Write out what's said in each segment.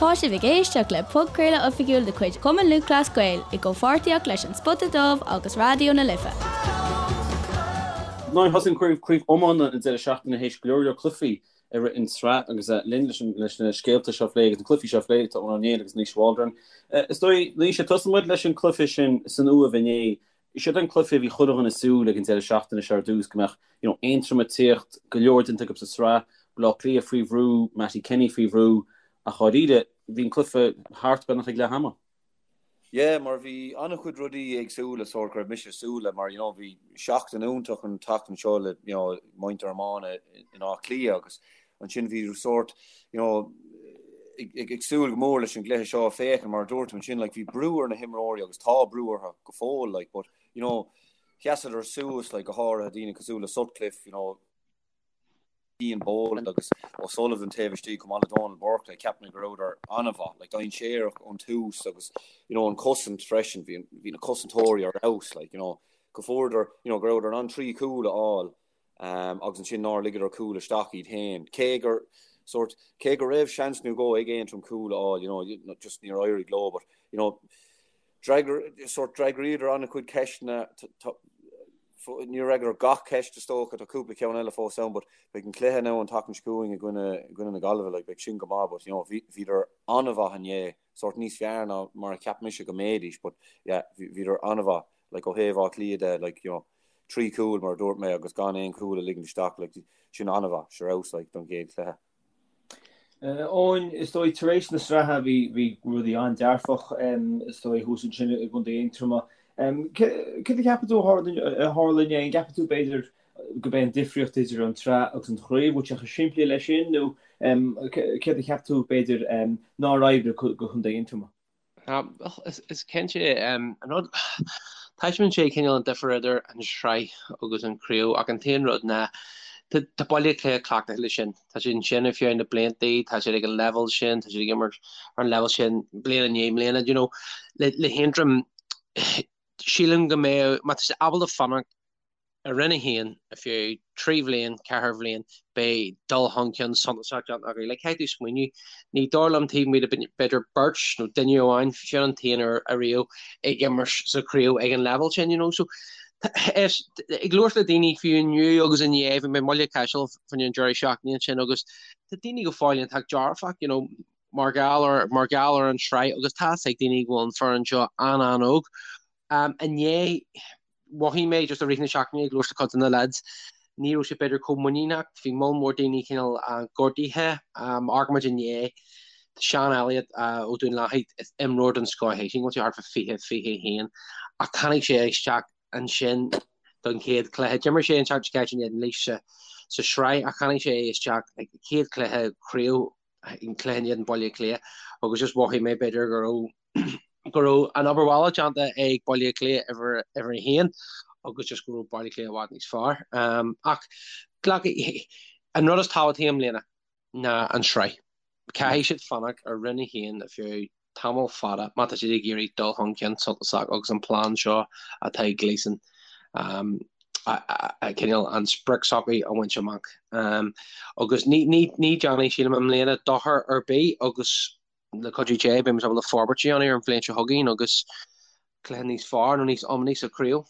Tá sibh ag éisteacht le podchraoladh oifigiúil de chuid Chumann Lúthchleas Gael i gcomhpháirtíocht leis An Spota Dubh agus Raidió na Life. Now thosaigh an craobh craobh iomána an deireadh seachtaine théis go leor leor cluichí i rith an tsraith agus linn leis leis na scéalta seo a phlé agus na cluichí seo a phlé tá Eoin Ó Néill agus Naoise Waldron. Is dóigh Naoise tosóidh muid leis an cluiche sin san Uaimh inné. Siod an cluiche a bhí chuile dhuine ag súil ag an deireadh seachtaine seo ar dtús, go mbeadh you know Aontroim ag tíocht, go leor déanta acu sa sraith, Baile Átha Cliath faoi bhrú, Mattie Kenny faoi bhrú, ach dháiríre, bhí an cluiche thart beagnach ag leath ama. Yeah, mar bhí an-chuid rudaí éagsúla sórt go raibh mise ag súil le, mar you know bhí seachtain iontach an tseachtain seo le you know muintir iomána in Áth Cliath agus Ansin bhí sórt, you know, ag súil go mór leis an gcluiche seo a féachaint, mar a dúirt tú ansin, like, bhí brú ar na himreoirí agus tá brú orthu go fóill, like, but, you know, sheasadar suas, like, go háirithe daoine cosúil le Sutcliffe, you know, Ian Boland agus O'Sullivan taobh istigh chomh maith le Donal Burke, like, cheap mé go rabhadar an-mhaith, like, dainséarach ón tús agus, you know, an cosaint freisin, bhí, bhí na cosantóirí ar fheabhas, like, you know, go fuaireadar, you know, go rabhadar in ann 3 chúl a fháil agus ansin nár ligeadar cúl isteach iad féin. Cé gur sórt, cé go raibh seans nó dhó ag Aontroim cúl a fháil, you know, just níor éirigh leo, but, you know, d'fhreagair, sórt, d'fhreagraíodar an-chuid ceisteanna, níor fhreagraíodar gach ceist is dócha, tá cúpla ceann eile fós ann, but beidh an cluiche now an tseachtain seo chugainn i gcoinne, i gcoinne na Gaillimhe, like, beidh sin go maith, but, you know, bhí, bhíodar an-mhaith inné, sórt níos fearr ná mar a cheap mise go mbeidís, but, yeah, bhíodar an-mhaith, like, ó thaobh Áth Cliath de, like, you know, 3 chúl mar a dúirt mé agus gan aon chúl a ligint isteach, like, sin an-mhaith, ar fheabhas, like, don gcéad chluiche. Eoin, is dóigh tar éis na sraithe bhí bhí rudaí an-dearfach is dóigh thuas ansin i gContae Aontroma. Céard a cheapann tú a tharla inné? An gceapann tú b'fhéidir gurb é an difríocht idir an tsraith agus an chraobh, bhfuil sé chomh simplí leis sin nó céard a cheap tú b'fhéidir nár oibrigh do Chontae Aontroma? Is cinnte, an rud, taispeánann sé cineál an difear idir an sraith agus an chraobh ach an t-aon rud ná tá Baile Átha Cliath cleachtaithe leis sin. Tá siad ansin ar feadh na blianta, tá siad ag an leibhéal sin, tá siad ag imirt ar an leibhéal sin bliain i ndiaidh mbliana. You know, le le hAontroim, sílim go mbeadh, má tá siad ábalta fanacht i Roinn 1 ar feadh 3 bhliain, 4 bhliain, beidh dul chun cinn suntasach déanta acu. Like, caithfidh tú smaoineamh, ní dóigh liom taobh amuigh de b'fhéidir beirt nó duine amháin, sin an t-aon uair ariamh ag imirt sa chraobh ag an leibhéal sin, you know. So, is, ag labhairt le daoine fiú inniu agus inné, bhí mé i mBaile Chaisil fá choinne an deireadh seachtaine ansin agus tá daoine go fóill iontach dearfach, you know, mar gheall ar, mar gheall ar an tsraith agus tá 'fhios ag daoine go bhfuil an foireann seo an-an-óg. Um, inné, mhothaigh mé just i rith na seachtaine ag labhairt le cuid de na lads, ní raibh siad b'fhéidir chomh muiníneach, bhí moll mór daoine cineál gortaithe. Amharcann muid inné, tá Seán Elliott ó Dún Lathaí, is imreoir den scoth é, sílim go bhfuil sé thart fá 20, 21, ach tháinig sé isteach ansin don chéad chluiche. D'imir sé an tseachtain seo caite in éadan Laois sa sraith ach tháinig sé isteach ag chéad chluiche craobh, an cluiche in éadan Baile Átha Cliath agus just mhothaigh mé b'fhéidir go raibh go raibh an obair bhaile déanta ag Baile Átha Cliath uimhir 1 agus just go raibh Baile Átha Cliath i bhfad níos fearr. Ach glacadh, an rud is tábhachtaí i mbliana ná an tsraith. Caithfidh siad fanacht ar Roinn 1 ar feadh tamall fada má tá siad ag iarraidh dul chun cinn suntasach agus an plean seo atá ag Gleeson cineál an sprioc s'acu a bhaint amach. Agus ní déanfaidh, sílim, i mbliana dochar ar bith agus le cuidiú Dé, beidh muid ábalta forbairt a dhéanamh ar an bhliain seo chugainn agus cluiche níos fearr nó níos iomaíche sa chraobh.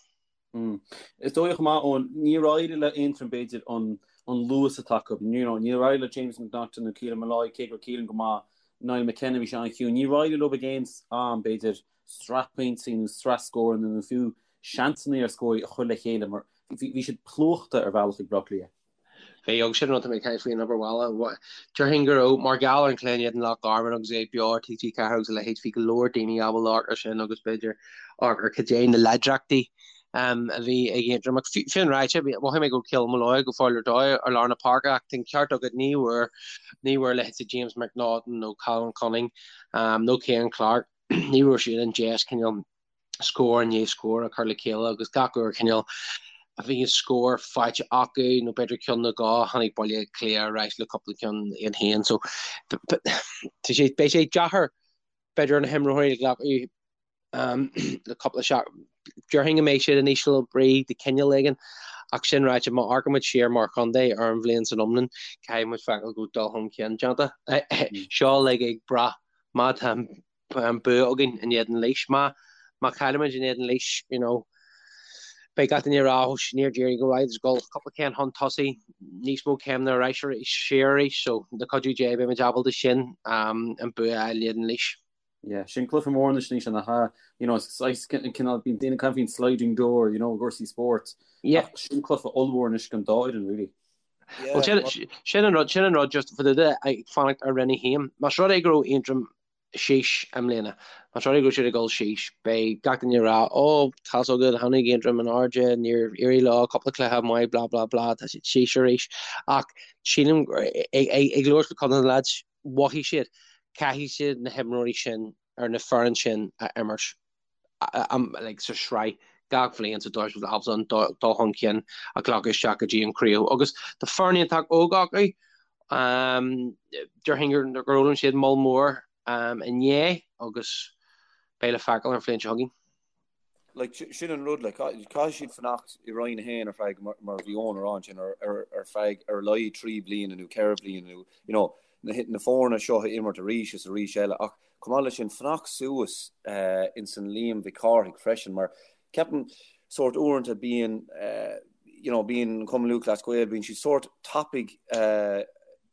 Is dóigh chomh maith, Eoin, níor éirigh le Aontroim b'fhéidir an luas atá acu. You know, níor éirigh le James McNaughton nó Keelan Molloy, cé go raibh Keelan go maith, Niall McKenna bhí sé an-chiúin. Níor éirigh leo ag aon am, b'fhéidir, sraith pointí nó sraith scóranna nó fiú seansanna ar scór a chur le chéile mar bhí siad plúchta ar bhealach ag Baile Átha Cliath. Bhí, agus sin an rud tá mé ag caint faoi an obair bhaile. Déarfainn go raibh, mar gheall ar an chluiche in éadan Loch Garman agus é beo ar TG4 agus a leithéid, bhí go leor daoine ábalta amharc ar sin agus b'fhéidir amharc ar cad é na láidreachtaí a bhí ag Aontroim. Ach sin ráite, mhothaigh mé go raibh Keelan Molloy go fóill ar dóigh ar lár na páirce ach tá an ceart agat, ní bhfuair, ní bhfuair leithéidí James McNaughton nó Colin Cunning nó Cian Clarke, ní raibh siad an deis cineál scór i ndiaidh scór a chur le chéile agus gach uair cineál a bhí an scór faighte acu nó b'fhéidir ceann nó dhó tháinig Baile Átha Cliath ar ais le cúpla ceann iad féin so tá sé beidh sé deacair b'fhéidir ar na himreoirí a ghlacadh le cúpla seachtain déarfainn go mbeidh siad in ísle brí de chineál éigin ach sin ráite má amharcann muid siar mar chontae ar an bhliain san iomlán caithfidh muid feiceáil go bhfuil dul chun cinn déanta. Seo uilig ag brath. Má tá an bua againn in éadan Laois, má má chaillimid in éadan Laois, you know, beidh gach duine ag rá, oh, níor d'éirigh go maith, ag dul cúpla céim chun tosaigh, níos mó céimeanna ar ais arís, siar arís, so le cuidiú Dé beimid ábalta sin an bua a fháil in éadan Laois. Yeah, sin cluiche mór anois anois an ha, you know, saghas cineál bíonn daoine ag caint faoin sliding door, you know, i gcúrsaí spóirt. Yeah. Ach sin cluiche ollmhór anois don dá fhoireann, really. Well, sin, sin an rud, sin an rud just for the ag fanacht ar Roinn 1. Más rud é go raibh Aontroim síos i mbliana, más rud é go raibh siad ag dul síos, beidh gach duine ag rá, oh, tá's agat, tháinig Aontroim in airde, níor éirigh leo, cúpla cluiche maith, blah, blah, blah, tá siad síos arís. Ach sílim, ag, ag, ag labhairt le cuid de na lads, mhothaigh siad, caithfidh siad na himreoirí sin ar na foireann sin a imirt like, sa sraith gach bhliain sa dóigh is ábalta an dul chun cinn a ghlacadh isteach go dtí an craobh. Agus tá foireann iontach óg acu. Déarfainn gur fhoghlaim siad moll mór inné agus beidh le feiceáil ar an bhliain seo chugainn. Like, sin an rud, like, caithfidh siad fanacht i Roinn 1 ar feadh, mar a bhí Eoin a rá ansin, ar, ar, ar feadh ar a laghad 3 bliana nó 4 bliana nó, you know, na, na foirne seo a imirt arís is arís eile. Ach chomh maith leis sin, fanacht suas uh, ins an Liam Mhic Cárthaigh freisin, mar ceapaim sórt uaireanta bíonn, uh, you know, bíonn an Cumann Lúthchleas Gael, bíonn siad sórt tapaidh uh,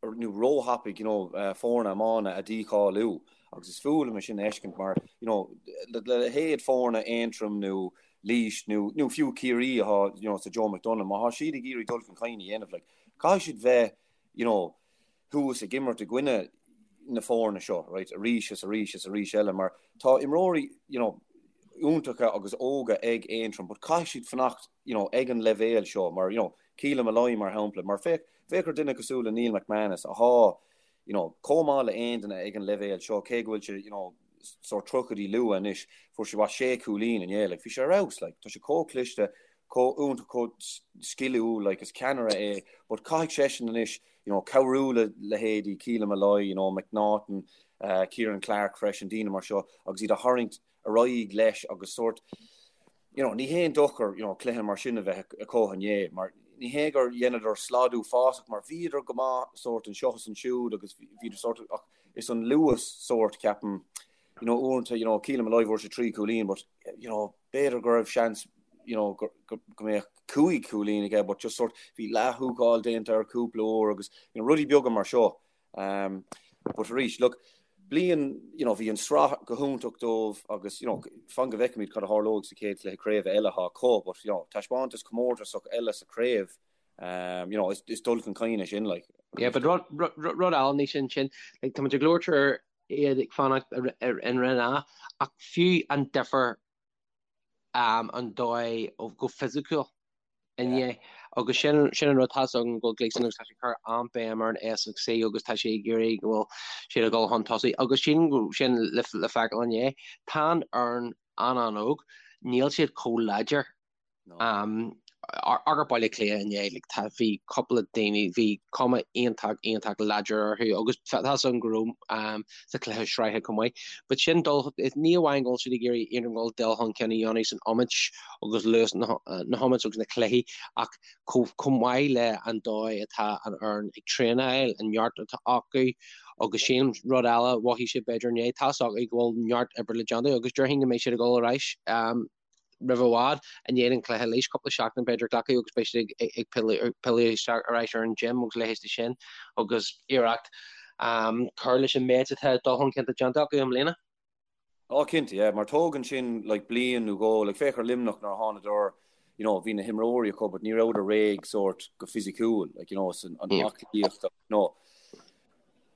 nó róthapaidh, you know, uh, foirne iomána a dícháiliú. Agus is fuath liom é sin a fheiscint mar, you know, le leithéid foirne Aontroim nó Laois nó, nó fiú Ciarraí atá, you know, sa Joe McDonagh, má tá siad ag iarraidh dul chun cinn a dhéanamh, like, caithfidh siad bheith, you know, thuas ag imirt i gcoinne na foirne seo, right, arís is arís is arís eile, mar tá imreoirí, you know, iontacha agus óga ag Aontroim, but caithfidh siad fanacht, you know, ag an leibhéal seo, mar, you know, Keelan Molloy, mar shampla, mar féach, féach ar duine cosúil le Neil McManus, atá, you know, chomh maith le aon duine ag an leibhéal seo, cé go bhfuil sé, you know, sórt tríochaidí luath anois, fuair sé, what, sé chúilín inné, like, bhí sé ar fheabhas, like, tá sé chomh cliste, chomh iontach, chomh sciliúil, like, is ceannaire é, but caithfidh seisean anois, you know, cabhrú le leithéidí Keelan Molloy, you know, McNaughton, uh, Kieran Clarke freisin, daoine mar seo, agus iad a tharraingt ar aghaidh leis agus sórt, you know, ní haon dochar, you know, cluiche mar sin a bheith acu inné, mar ní hé gur dheineadar slad uafásach, mar bhíodar go maith sórt anseo is ansiúd agus bhíodar sórt, ach is an luas sórt, ceapaim, you know, uaireanta, you know, Keelan Molloy fuair sé 3 cúilín, but, you know, b'fhéidir go raibh seans, you know, go, go, go mbeadh 5 cúilín aige, but just sórt, bhí leath-húcáil déanta air cúpla uair agus, you know, rudaí beaga mar seo. Um, but arís, look, bliain, you know, bhí an sraith go hiontach dóibh agus, you know, fan go bhfeicfimid cad a tharlóidh sa chéad chluiche craoibhe eile atá acu, but, you know, taispeántas comórtasach eile sa chraobh, um, you know, is, is dul chun cinn é sin, like. Yeah, but rud, rud, rud eile níos sin sin, like, tá muid ag labhairt ar iad ag fanacht in Roinn A, ach fiú an difear um, an dóigh go fisiciúil inné agus sin sin an rud tá's agam go bhfuil Gleeson agus tá sé ag cur an-bhéim ar an S agus C agus tá sé ag iarraidh go bhfuil siad ag dul chun tosaigh agus sin sin le le feiceáil inné. Tá an fhoireann an-an-óg, níl siad chomh láidir um, ar Baile Átha Cliath inné, like, tá bhí cúpla daoine, bhí cuma iontach iontach láidir orthu agus tá's agam go raibh um, sa chluiche sraithe chomh maith. But sin dul, ní amháin go bhfuil siad ag iarraidh Aontroim dul dul chun cinn a dhéanamh san iomáint agus luas na hiomáint agus na cluichí ach chomh maith le an dóigh atá an fhoireann ag traenáil, an neart atá acu agus sin rud eile mhothaigh siad b'fhéidir inné, tá's acu go bhfuil neart oibre le déanamh agus déarfainn go mbeidh siad ag dul ar ais roimh i bhfad i ndiaidh an chluiche Laois, cúpla seachtain b'fhéidir glacadh agus beidh siad ag pilleadh isteach ar ais ar an gym agus leithéid de sin agus iarracht cur leis an méid atá dul chun cinn déanta acu i mbliana. Á cinnte, yeah, mar tógann sin like bliain nó dhó, like féach ar Luimneach nuair a thánadar, you know, bhí na himreoirí acu but ní rabhadar réidh sórt go fisiciúil, like, you know, san an aclaíocht, you know,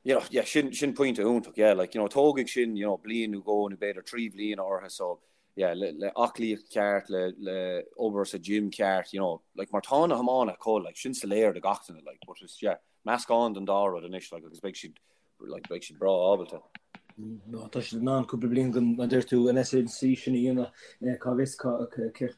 you know, yeah, sin, sin pointe iontach, yeah, like, you know, tógfaidh sin, you know, bliain nó dhó nó b'fhéidir 3 bhliana orthu so, yeah, le, le aclaíocht ceart, le, le obair sa gym ceart, you know, like, mar tá na hiománaithe acu, like, sin soiléir do gach duine, like, but it's, yeah, meascán den dá rud anois, like, agus beidh siad like, beidh siad breá ábalta. No, tá siad in ann cúpla bliain den, mar a deir tú, an S&C sin a dhéanamh, cá bhfios cé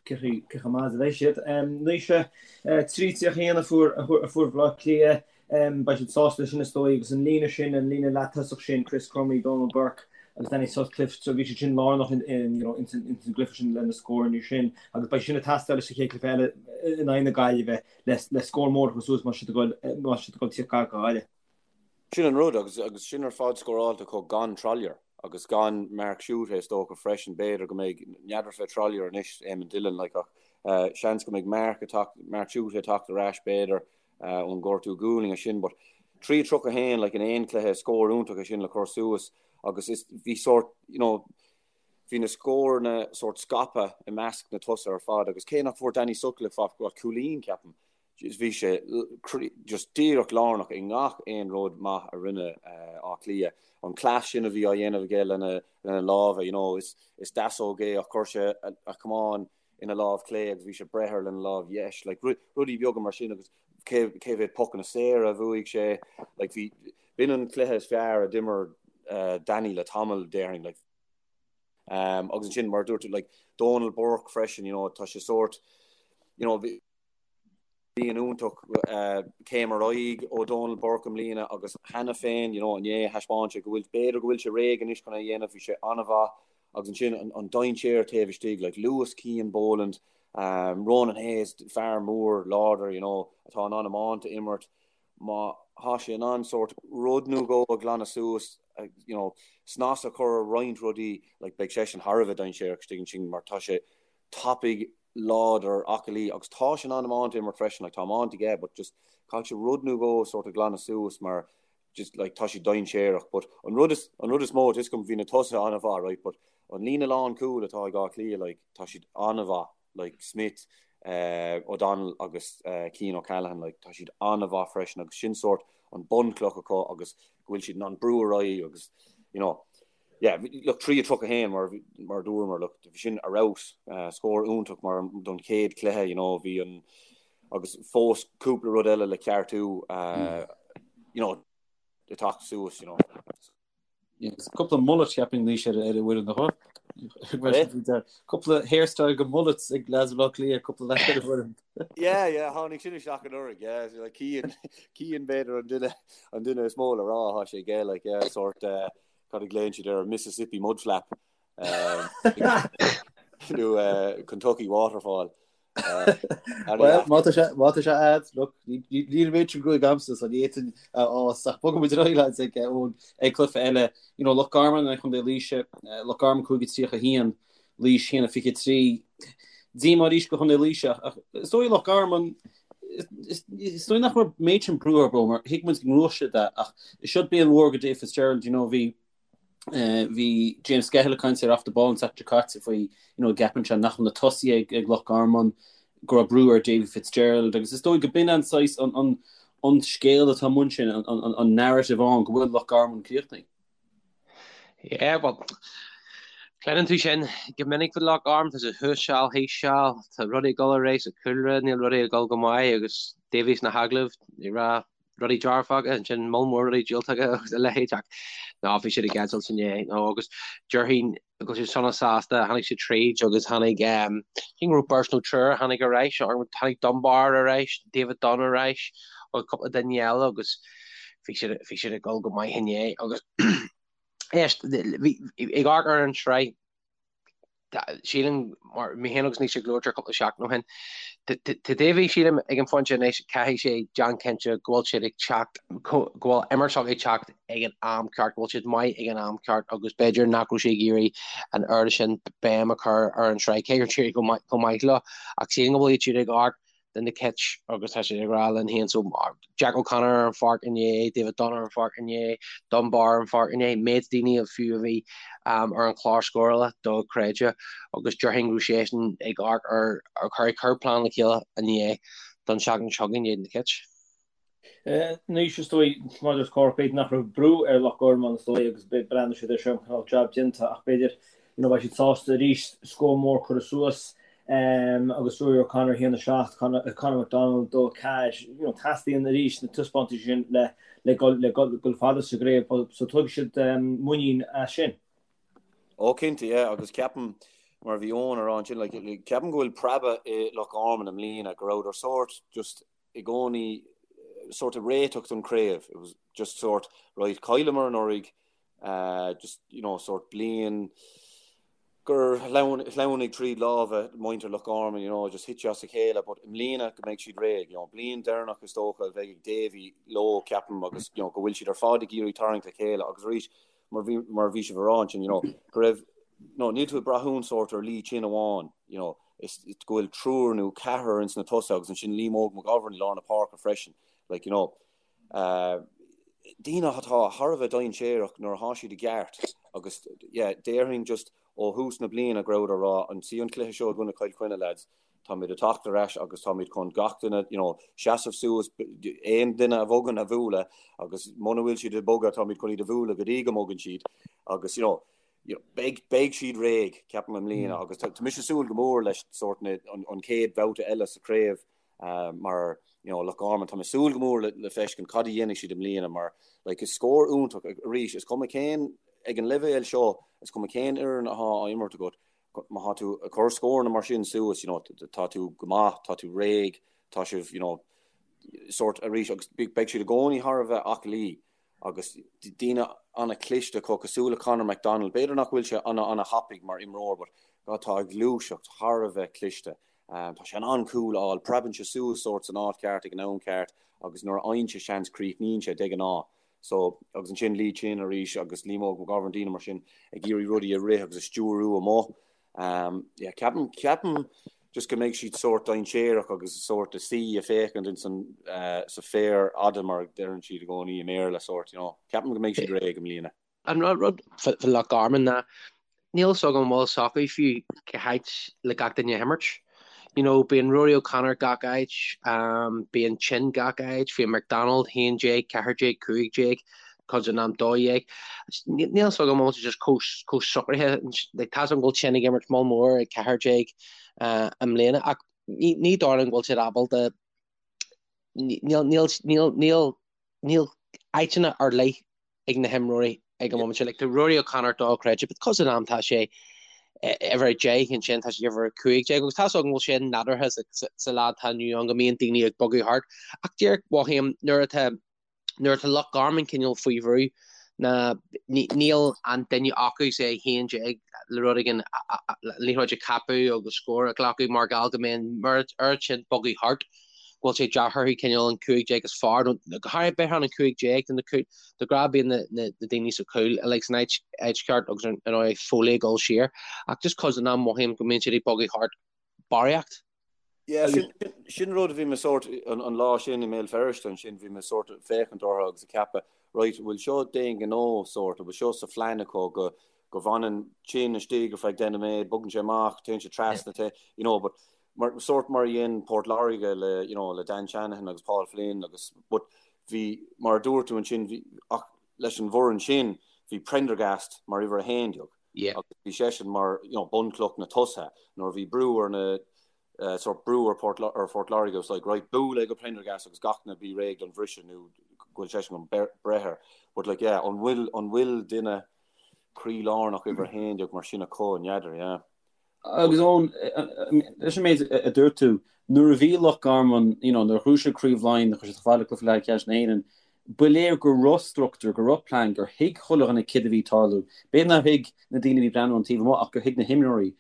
chomh maith is a bheidh siad. Naoise, 3-31 a fuair a fuair Baile Átha Cliath, beidh siad sásta leis sin is dóigh agus an líne sin, an líne leath-tosach sin, Chris Crummey, Donal Burke agus Danny Sutcliffe, so bhí siad sin lárnach in, you know, ins an gcluiche sin le na scóranna sin agus beidh sin ag teastáil sa chéad chluiche eile in aghaidh na Gaillimhe le le scór mór a chur suas má tá siad ag dul má tá siad ag dul tíocht gar do Ghaillimh. Sin an rud, agus agus sin ar fad scóráilte acu gan Trollier. Agus gan Mark Schutte is dócha freisin, b'fhéidir go mbeidh, n'fheadar fé Trollier anois, Eamon Dillon, like, ach seans go mbeidh Mark ag teacht, Mark Schutte ag teacht ar ais b'fhéidir ón gortú gualainn sin, but 3-31 like in aon cluiche, scór iontach é sin le cur suas agus is, bhí sórt, you know, bhí na scóranna sórt scaipthe i measc na tosaithe ar fad agus cé nach bhfuair Danny Sutcliffe ach cúilín, ceapaim, Bhí sé just díreach lárnach i ngach aon rud maith a rinne Áth Cliath. An cleas sin a bhí á dhéanamh aige lena lámha, you know, is deasóg é ach chuir sé a chamán ina lámh chlé agus bhí sé ag breith air lena lámh dheis. Like, rudaí beaga mar sin agus cé mhéad pocanna saora a bhuaigh sé. Like, bhí, b'in an cluiche is fearr a d'imir Danny le tamall, déarfainn. Like, agus ansin, mar a dúirt tú, like, Donal Burke freisin, you know, tá sé sórt, you know, Bliain iontach céim ar aghaidh ó Donal Burke i mbliana agus cheana féin, you know, inné thaispeáin sé go bhfuil, b'fhéidir go bhfuil sé réidh anois chun é a dhéanamh, bhí sé an-mhaith agus ansin an dainséar taobh istigh, like luas Cian Boland, Ronan Hayes, fear mór láidir, you know, atá in ann iomáint a imirt, má thá sé in ann sórt rud nó dhó a ghlanadh suas, you know, snas a chur ar roinnt rudaí, like beidh seisean thar a bheith dainséarach istigh ansin mar tá sé tapaidh, láidir, aclaí agus tá sé in ann iomáint a imirt freisin, like tá iomáint aige but just caithfidh sé rud nó dhó sort of glanadh suas mar just like tá sé dainséarach but an rud is an rud is mó tá a fhios agam bhí na tosaithe an-mhaith right but an líne lán cúil atá ag Áth Cliath like tá siad an-mhaith like Smith, eh, O'Donnell agus eh, Cian O'Callaghan like tá siad an-mhaith freisin agus sin sort an bunchloch acu agus go bhfuil siad in ann brú ar aghaidh agus you know yeah, look, 3-31 mar mar a dúramar, look, bhí sin ar fheabhas, scór iontach mar don chéad chluiche, you know, bhí an agus fós cúpla rud eile le ceartú, you know, ag teacht suas, you know. Yes, cúpla mullet cheapfainn anois ar ar an bhfoireann nach bhfuil? Cúpla hairstyle go mullets ag lads Bhaile Átha Cliath, cúpla leaid ar an bhfoireann. Yeah, yeah, tháinig sin isteach anuraidh, yeah, like Cian, Cian b'fhéidir an duine an duine is mó le rá, thá sé aige, like, yeah, sort, uh, Cad a ghlaonn siad air? Mississippi Mud Flap nó Kentucky Waterfall. Well, má tá sé má tá sé a'd, look, níl an méid sin gruaig a'msa so ní fhéadfainn a fhás ach bogfaidh muid ar aghaidh lads ag ón ag cluiche eile. You know, Loch Garman in aghaidh Chontae Laoise, Loch Garman 5-31, Laois 1-23. Díomá arís do Chontae Laoise ach is dóigh Loch Garman is dóigh nach raibh an méid sin brú orthu mar thuig muid go ngnóthódh siad é ach is seod bliain mhór do Dave Fitzgerald, you know, bhí bhí James Skehill ag caint ar Off the Ball an tseachtain seo caite faoi you know, gceapann sé nach bhfuil na tosaithe ag, ag Loch Garman go raibh brú ar Davy Fitzgerald agus is dóigh go b'in an saghas an, an, an scéal atá amuigh ansin, an, an, an narrative ann go bhfuil Loch Garman críochnaithe. Yeah, well, cluineann tú sin go minic faoi Loch Garman, tá sé thuas seal, thíos seal, tá rudaí ag dul ar aghaidh sa chúlra, níl rudaí ag dul go maith agus Davy sna hagallaimh ag rá rudaí dearfacha, ansin moll mór rudaí diúltacha agus a leithéid ach ná bhí siad ag eitilt inné nó agus déarfainn go bhfuil siad sona sásta, tháinig siad tríd agus tháinig, cén go raibh beirt nó triúr a tháinig ar ais, tháinig Dunbar ar ais, David Dunne ar ais agus cúpla duine eile agus bhí siad, bhí siad ag dul go maith inné agus éist, bhí, ag amharc ar an tsraith, sílim, mar mé féin agus Naoise ag labhairt air cúpla seachtain ó shin, tá Davy, sílim, ag an phointe anois, caithfidh sé déanamh cinnte go bhfuil siad ag teacht, go bhfuil imirt s'acu ag teacht ag an am ceart, go bhfuil siad maith ag an am ceart agus b'fhéidir nach raibh sé ag iarraidh an oiread sin béim a chur ar an tsraith, cé gur d'éirigh go maith leo, ach sílim go bhfuil siad ag amharc do na Cait agus tá siad ag rá linn féin so Jack O'Connor ar an pháirc inné, David Dunne ar an pháirc inné, Dunbar ar an pháirc inné, méid daoine a fiú a bhí ar an chlár scórála dochreidte agus déarfainn go raibh seisean ag amharc ar ag cur plean le chéile inné don seachtain seo chugainn in éadan na Cait. Anois is dóigh, mar a dúirt Cork, b'fhéidir nach raibh brú ar Loch Garman is dóigh agus breathnóidh siad air seo mar cineál jab déanta ach b'fhéidir you know beidh siad sásta arís scór mór curtha suas agus Ruairí O'Connor 1-7, Conor McDonald 2-4, you know teastaíonn arís na taispeántais sin le le dul le dul fada sa gcraobh so tógfaidh siad muinín as sin. Ó cinnte, yeah, agus ceapaim, mar a bhí Eoin a rá ansin, like, ceapaim go bhfuil preabadh i Loch Garman i mbliana, go rabhadar sórt just i gcónaí sórt ag réiteach don chraobh. It was just sort, right, chailleamar anuraidh, just, you know, sort bliain gur shleamhnaigh tríd lámha muintir Loch Garman, you know, just thit sé as a chéile, but i mbliana go mbeidh siad réidh, you know, bliain deireanach is dócha a bheidh ag Davy leo, ceapaim, agus, you know, go bhfuil siad ar fad ag iarraidh tarraingt le chéile agus arís. mar bhí mar bhí sibh a rá ansin, you know, go raibh, no, níl tú ag brath sórt ar Lee Chin amháin, you know, is go bhfuil triúr nó ceathrar ins na tosaithe agus ansin Liam Óg McGovern i lár na páirce freisin, like, you know, uh, daoine atá thar a bheith dainséarach nuair atá siad i gceart agus yeah, déarfainn just ó thús na bliana go rabhadar ag rá an sí an cluiche seo i gcoinne Chill Chainnigh lads, táimid ag teacht ar ais agus táimid chun gach duine you know, seasamh suas aon duine a bhogann a bhualadh agus muna bhfuil siad ag bogadh táimid chun iad a bhualadh go dtí go mbogann siad agus you know, you know, beidh, beidh siad réidh ceapaim i mbliana agus tá mise ag súil go mór leis sórt na, an, an chéad bhabhta eile sa chraobh uh, mar you know, Loch Garman tá mé ag súil go mór le, le feiscint cad a dhéanfaidh siad i mbliana mar like, is scór iontach arís is cuma cén ag an leibhéal seo is cuma cén fhoireann atá á imirt agat má tá tú ag cur scóranna mar sin suas, you know, tá tú go maith, tá tú réidh, tá sibh, you know, sórt arís agus beidh siad i gcónaí thar a bheith aclaí agus daoine an-chliste acu cosúil le Conor McDonald. B'fhéidir nach bhfuil sé ana ana-thapaidh mar imreoir but God tá a ghluaiseacht thar a bheith cliste. Um, tá sé in ann cúl a fháil, preabann sé suas sórt san áit ceart ag an am ceart agus nuair a fhaigheann sé seans críochnaíonn sé de ghnáth. So, agus ansin Lee Chin arís agus Liam Óg McGovern, daoine mar sin ag iarraidh rudaí a rith agus a stiúrú amuigh. Um, yeah, ceapaim, ceapaim just go mbeidh siad sórt dainséarach agus sórt ag suí ag féachaint in san, uh, sa féar fhada mar a deireann siad i gcónaí i mBéarla sórt, you know. Ceapaim go mbeidh siad réidh i mbliana. An rud fá Loch Garman ná níl fhios agam an bhfuil fhios acu fiú cá háit le gach duine a himirt. You know, bíonn Rory O'Connor gach áit, um, bíonn Chin gach áit, bíonn McDonald 11, 14, 15, cuid den am 12. Níl fhios agam an bhfuil sé just chomh socraithe, like, tá fhios agam go bhfuil Chin ag imirt moll mór ag 14 uh, i mbliana, ach ní, ní dóigh liom go bhfuil siad ábalta níl, níl, níl, níl, níl áiteanna ar leith ag na himreoirí ag an móimint seo. Like, tá Rory O'Connor dochreidte, but cuid den am tá sé uimhir 10 ansin tá sé uimhir 15 agus tá fhios agam go bhfuil sé nádúrtha sa lá atá inniu ann go mbíonn daoine ag bogadh thart. Ach díreach mothaím nuair atá nuair atá Loch Garman cineál faoi bhrú ná níl an duine acu say 11 le rud éigin liathróid a cheapadh agus scór a ghlacadh mar gheall go mbíonn oiread sin bogadh thart. go bhfuil sé deacair orthu cineál an 15 is fearr nó go háirithe b'fhéidir an 15 de na de ghnáth bíonn na daoine sa chúl uilig san áit áit cheart agus ar ndóigh Foley ag dul siar ach just cuid den am mothaím go mbíonn siad ag bogadh thart barraíocht. Yeah, sin, sin rud a bhí mé sórt an, an lá sin i mBéal Feirste ansin bhí mé sórt ag féachaint orthu agus ag ceapadh right bhfuil seo d'aon ghnó sórt bhfuil seo sa phlean acu go go bhfanann Chin istigh ar feadh 10 nóiméad bogann sé amach téann sé trasna yeah. you know but mar, sórt mar a dhein Port Láirge le, you know, le Dan Shanahan agus Paul Flynn agus, but bhí, mar a dúirt tú ansin, bhí, ach leis an bhfoireann sin, bhí Prendergast mar uimhir 11 Yeah. agus bhí seisean mar, you know, bunchloch na tosaithe. Nuair a bhí brú ar na, eh, sórt brú ar Port, ar Phort Láirge, it was like, right, buail é go Prendergast agus gach duine bí réidh don bhriseadh nó go bhfuil seisean chun breith air. But like, yeah, an bhfuil, an bhfuil duine croílárnach uimhir 11 mar sin acu, n'fheadar, yeah. Agus Eoin, leis an méid a dúirt tú, nuair a bhí Loch Garman, you know, nuair a ghnóthaigh siad Craobh Laighean, nuair a chuaigh siad chomh fada le cluiche leathcheannais na hÉireann, ba léir go raibh struchtúr, go raibh plean, gur thuig chuile dhuine céard a bhí ag tarlú. B'fhéidir nár thuig na daoine a bhí ag breathnú ón taobh amuigh ach gur thuig na himreoirí.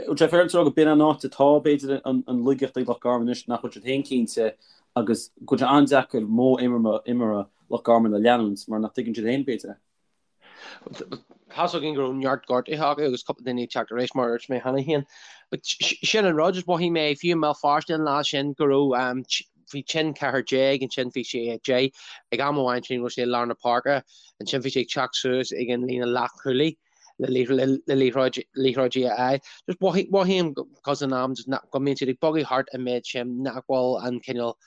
Bhfuil sé féaráilte a rá go b'in an áit atá, b'fhéidir, an laigeacht ag Loch Garman anois, nach bhfuil siad féin cinnte agus go bhfuil sé an-deacair modh imeartha Loch Garman a leanúint mar nach dtuigeann siad féin, b'fhéidir, é. Tá's againn go raibh neart gortuithe acu agus cúpla duine ag teacht ar ais mar a dúirt mé cheana féin. But sin an rud, just mhothaigh mé fiú i mBéal Feirste an lá sin go raibh bhí Chin 14, ansin bhí sé 10, ag am amháin sin go raibh sé i lár na páirce, ansin bhí sé ag teacht suas ag an líne leathchúlaí le liathróid liathróidí a fháil. Just mhothaigh mothaím cuid den am just go mbíonn siad ag bogadh thart an méid sin nach bhfuil an cineál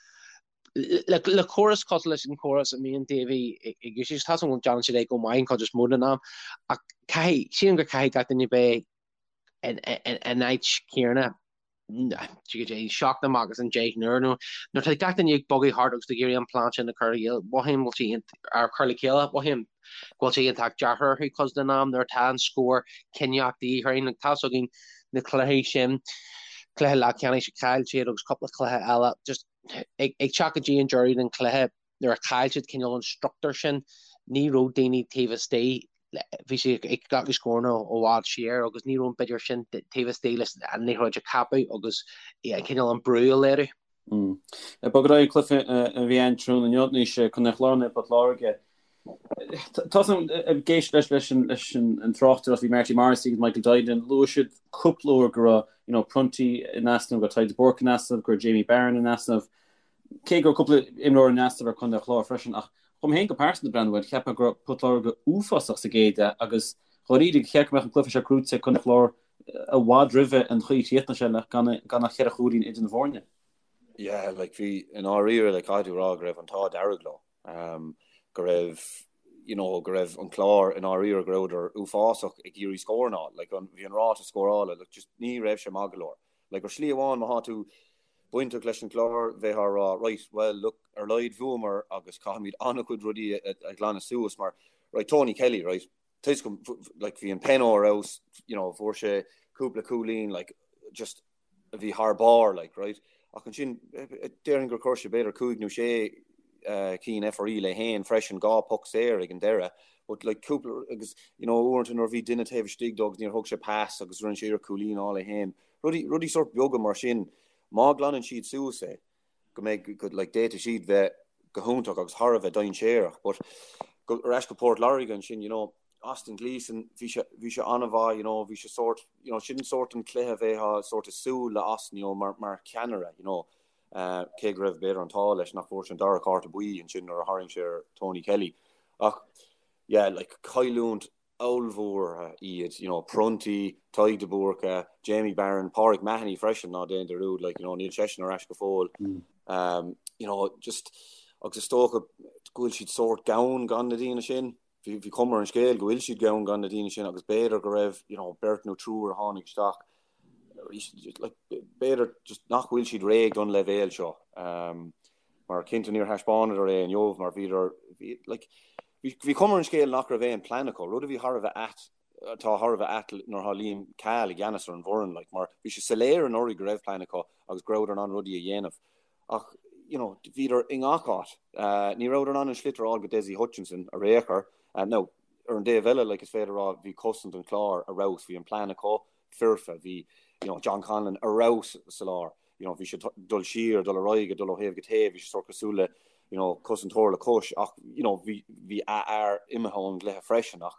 Le córas cosúil leis an chóras a mbíonn Davy ag úsáid, tá a fhios agam go ndéanann siad é go maith an chuid is mó den am, ach caithfidh, sílim go caithfidh gach duine bheith in áit chéanna seacht amach as an 10 n-uair nó nuair atá gach duine ag bogadh thart agus ag iarraidh an plean sin a chur a mothaím go bhfuil sé ar chur le chéile, mothaím go bhfuil sé iontach deacair orthu cuid den am nuair atá an scór cinniúnach de dhíth orainn. Tá a fhios againn na cluichí sin, cluiche leathcheannais a chaill siad agus cúpla cluiche eile, just ag teacht go dtí an deireadh den chluiche, nuair a chaill siad cineál an struchtúr sin, ní raibh daoine taobh istigh, bhí siad ag glacadh scóranna ó bhfad siar agus ní raibh an b'fhéidir sin taobh istigh leis an liathróid a cheapadh agus cineál an brú a léiriú. Ag bogadh ar aghaidh an cluiche a bhí ann tráthnóna inniu, anois Contae an Chláir in aghaidh Port Láirge. Tá ag éisteacht leis leis leis an tráchtaireacht bhí Marty Morrissey agus Michael Duignan luaigh siad cúpla uair go raibh you know, Prunty in easnamh, go raibh Tadhg de Búrca in easnamh, go raibh Jamie Barron in easnamh. Cé go raibh cúpla imreoir in easnamh ar Chontae an Chláir freisin ach dhom féin go pearsanta breathnú air, cheap mé go raibh Port Láirge uafásach sa gcéad leath agus dháiríre cheart go mbeadh an cluiche seo gnóite ag Contae an Chláir i bhfad roimhe an chaoi a chríochnaigh sé le gan ach cheithre chúilín idir na foirne. Yeah, like bhí i ndáiríre like caithfidh tú a rá go raibh an t-ádh dearg leo. go raibh you know go raibh an Clár i ndáiríre go rabhadar uafásach ag iarraidh scóranna a fháil like an bhí an ráta scórála like just ní raibh sé maith go leor like ar shlí amháin má thá tú bainteach leis an Clár bheifeá ag rá right well look ar laghad bhuamar agus caithfimid an-chuid rudaí a, a ghlanadh suas mar right Tony Kelly right toisc like bhí an peno ar fheabhas you know fuair sé cúpla cúilín like just a bhí thar barr, like, right? Ach ansin, déarfainn gur chuir sé b'fhéidir 5 nó 6 cinn FRE leis féin freisin, 2 poc saor ag an deireadh, but like cúpla, agus you know uaireanta nuair a bhí duine taobh istigh dó agus níor thug sé pas agus rinne sé iarracht cúilín a fháil é féin, rudaí, rudaí sórt beaga mar sin, má ghlanann siad suas é, go mbeidh, go, like, d'fhéadfadh siad bheith go hiontach agus thar a bheith dainséarach, but go, ar ais go Port Láirge ansin, you know, Austin Gleeson, bhí sé, bhí sé an-mhaith, you know, bhí sé sórt, you know, sin sórt an cluiche a bheifeá sórt ag súil le Austin, you know, mar, mar cheannaire, you know, uh, cé go raibh b'fhéidir an t-ádh leis nach bhfuair sé an dara cárta buí ansin nuair a tharraing sé ar Tony Kelly. Ach, yeah, like, cailliúint ollmhór iad, you know, Prunty, Tadhg de Búrca, Jamie Barron, Pauric Mahony freisin, ná déan dearúd, like, you know, níl seisean ar ais go fóill. Um, you know, just, agus is dócha go bhfuil siad sórt gann gan na daoine sin. Bhí, bhí cuma ar an scéal go bhfuil siad gann gan na daoine sin agus b'fhéidir go raibh, you know, beirt nó triúr a tháinig isteach, like, b'fhéidir just nach bhfuil siad réidh don leibhéal seo. Um, mar cinnte níor thaispeánadar é inniu mar bhíodar, bhí, like, bhí, bhí cuma ar an scéal nach raibh aon plean acu, rud a bhí thar a bheith ait, atá thar a bheith ait nuair atá Liam Cahill i gceannas ar an bhfoireann, like, mar bhí sé soiléir anuraidh go raibh plean acu agus go rabhadar in ann rudaí a dhéanamh. Ach, you know, bhíodar i ngach áit. Uh, ní rabhadar in ann an sliotar a fháil go Dessie Hutchinson ar aon chor. Uh, now, ar an dtaobh eile, like, is féidir a rá, bhí cosaint an Chláir ar fheabhas, bhí an plean acu foirfe, bhí, you know, John Conlon ar fheabhas sa lár. You know, bhí sé dul siar, dul ar aghaidh, dul ó thaobh go taobh, bhí sé sórt cosúil le, you know, cosantóir le cois, ach, you know, bhí, bhí a fhear imithe ón gcluiche freisin, ach,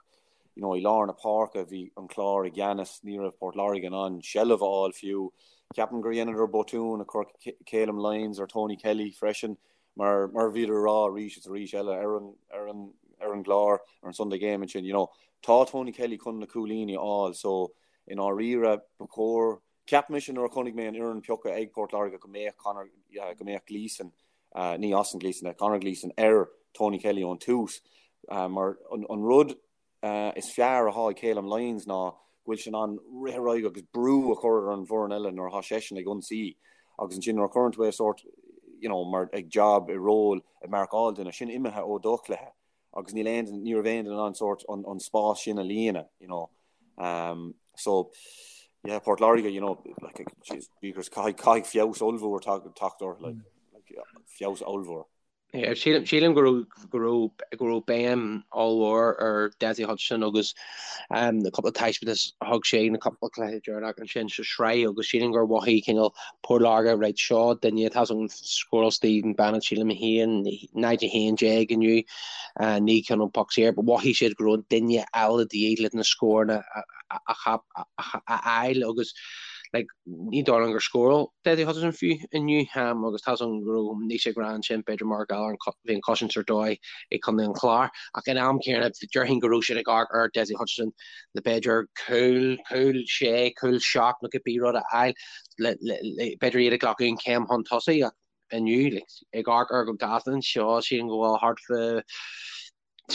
you know, i lár na páirce bhí an Clár i gceannas, ní raibh Port Láirge in ann seilbh a fháil fiú. Ceapaim gur dheineadar botún ag cur Calum Lyons ar Tony Kelly freisin, mar, mar a bhíodar ag rá arís is arís eile ar an, ar an, ar an gclár, ar an Sunday Game ansin, you know, tá Tony Kelly chun na cúilíní a fháil, so i ndáiríre ba chóir, Cheap mise nuair a chonaic mé an fhoireann pioctha ag Port Láirge go mbeadh Conor, go mbeadh Gleeson, ní Austin Gleeson, Conor Gleeson ar Tony Kelly ón tús mar an rud is fearr atá ag Calum Lyons ná go bhfuil sé in ann rith ar aghaidh agus brú a chur ar an bhfoireann eile nuair atá seisean ag ionsaí agus ansin nuair a chuireann tú é sórt you know, mar ag job i ról ag marcáil duine, sin imithe ó do chluiche. agus níl aon ní raibh aon duine in ann sórt an, an spás sin a líonadh, you know. Um, so, yeah, Port Láirge, you know, like, jeez, because caithfidh, caithfidh feabhas ollmhór teacht orthu, like, like, feabhas ollmhór. Yeah, sílim, sílim go raibh, go raibh, go raibh béim ollmhór ar Dessie Hutchinson agus um, na cúpla taispeántas a thug sé na cúpla cluiche deireanach ansin sa sraith agus sílim gur mhothaigh cineál Port Láirge right seo duine atá ann scóráil Stephen Bennett sílim 1, 0-11 inniu, 9 ceann ón poc saor, but mhothaigh siad go raibh duine eile de dhíth le na scóranna a fháil agus like ní dóigh liom gur scóráil Dessie Hutchinson fiú inniu agus tá ann go raibh níos ag rá ansin b'fhéidir mar gheall ar bhí an chosaint ar dóigh ag Contae an Chláir ach in am céanna déarfainn go raibh siad ag amharc ar Dessie Hutchinson le b'fhéidir cúl, cúl sé, cúl 7 nó cibé rud a fháil le b'fhéidir iad ag glacadh an chéim chun tosaigh ach inniu like, ag amharc ar go gasta anseo sílim go bhfuil thart fá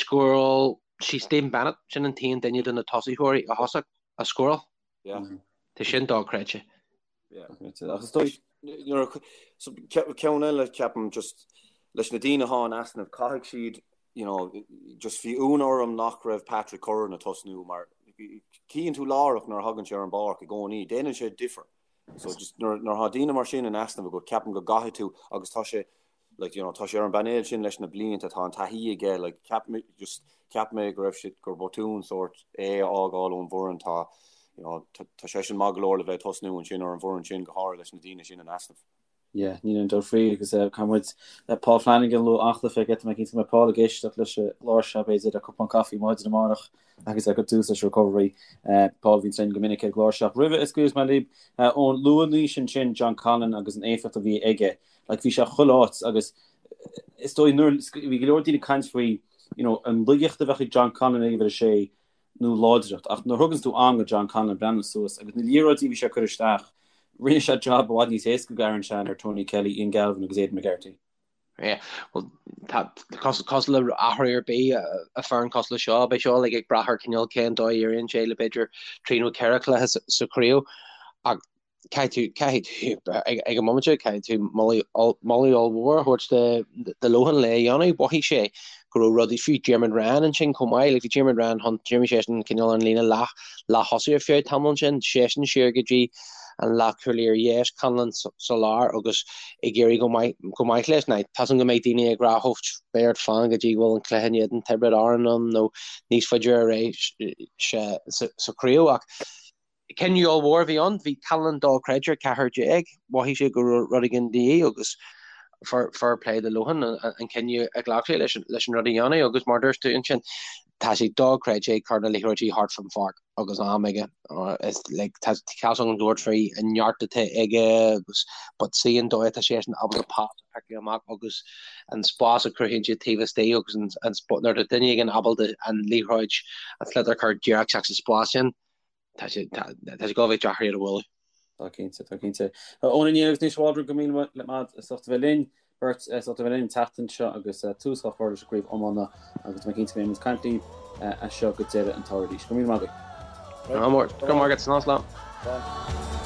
scóráil sí Stephen Bennett sin an t-aon duine de na tosaitheoirí a thosaigh a scóráil. Yeah. Tá sin dochreidte. Yeah. Ach is dóigh so ceann eile ceapaim just leis na daoine atá in easnamh caithfidh siad you know, just bhí ionadh orm nach raibh Patrick Curran ag tosnú mar cíonn tú láithreach nuair a thagann sé ar an bpáirc i gcónaí, déanann sé difear. So just nuair nuair atá daoine mar sin in easnamh agat, ceapaim go gcaithfidh tú agus tá sé like, you know, tá sé ar an bpainéal sin leis na blianta, tá an taithí aige, like, cheap mé just cheap mé go raibh sé gur botún sórt é a fhágáil ón bhfoireann, tá you know, tá, tá seisean maith go leor le bheith ag tosnú ansin ar an bhfoireann sin go háirithe leis na daoine sin in easnamh. Yeah, níl aon dabht faoi agus caithfidh muid Paul Flanagan a lua an-chluiche aige, tá mé cinnte go mbeidh Paul ag éisteacht leis an gclár seo b'fhéidir le cupán caife maidin amárach agus é ag cur tús leis an recovery. Paul a bhíonn linn go minic ar an gclár seo. Roimhe a scaoilfeas mé libh ón luaigh Naoise ansin John Conlon agus an éifeacht a bhí aige. Like bhí sé chuile áit agus is dóigh nuair bhí go leor daoine ag caint faoi you know an laigeacht a bheadh ag John Conlon ag uimhir a sé nó láidreacht, ach nuair a thuganns tú am go John Conlon breathnú suas agus na liathróidí a bhí sé ag cur isteach, rinne sé job i bhfad níos éasca go Aaron Shanahan ar Tony Kelly, Ian Galvin agus Aidan McGarty. Yeah, well, tá cosúil le athrú ar bith i bhfoireann cosúil le seo, beidh seo like ag brath ar cineál cén dóigh a éiríonn sé le b'fhéidir trí nó ceithre chluiche sa chraobh ach caithfidh tú, caithfidh tú, ag an mbomaite, caithfidh tú moladh ollmhór a thabhairt do Lohan le é a dhéanamh. Mhothaigh sé go raibh rudaí, fiú Diarmuid Ryan ansin chomh maith, like bhí Diarmuid Ryan chun, d'imir seisean cineál an líne leath, leath-thosaigh ar feadh tamaill ansin, seisean siar go dtí an leathchúlaí ar dheis, Conlon sa lár agus ag éirí go maith, go maith leis. Now, tá a fhios agam go mbeidh daoine ag rá, oh, beidh ort fan go dtí go bhfuil an cluiche in éadan Tiobraid Árann ann nó níos faide ar aghaidh sa, sa chraobh ach, Cinneadh ollmhór a bhí ann. Bhí Conlon dochreidte ar 14. Mhothaigh sé go raibh rud éigin de dhíth agus fair play do Lohan an cinneadh a ghlac sé leis an rud a dhéanamh agus mar dúirt tú ansin, tá sé dochreidte ag cur na liathróidí thart fán pháirc agus am aige. Is like tá cás ann dúirt faoi an neart atá aige agus but see an dóigh atá seisean ábalta pas a phiocadh amach agus an spás a chruthaíonn siad taobh istigh agus an nuair atá duine éigin ábalta an liathróid an sliotar a chur díreach isteach sa spás sin Tá sé tá sé go bheith deacair iad a bhualadh. Tá cinnte, tá cinnte. Eoin Ó Néill agus Naoise Waldron go míle maith agat as ucht a bheith linn, beirt as ucht a bheith linn an tseachtain seo agus tús á chur leis an gcraobh iomána agus tá mé cinnte go mbeidh muid ag caint libh as seo go deireadh an tsamhraidh arís. Go míle maith agaibh. Go raibh maith agat, slán slán. Slán.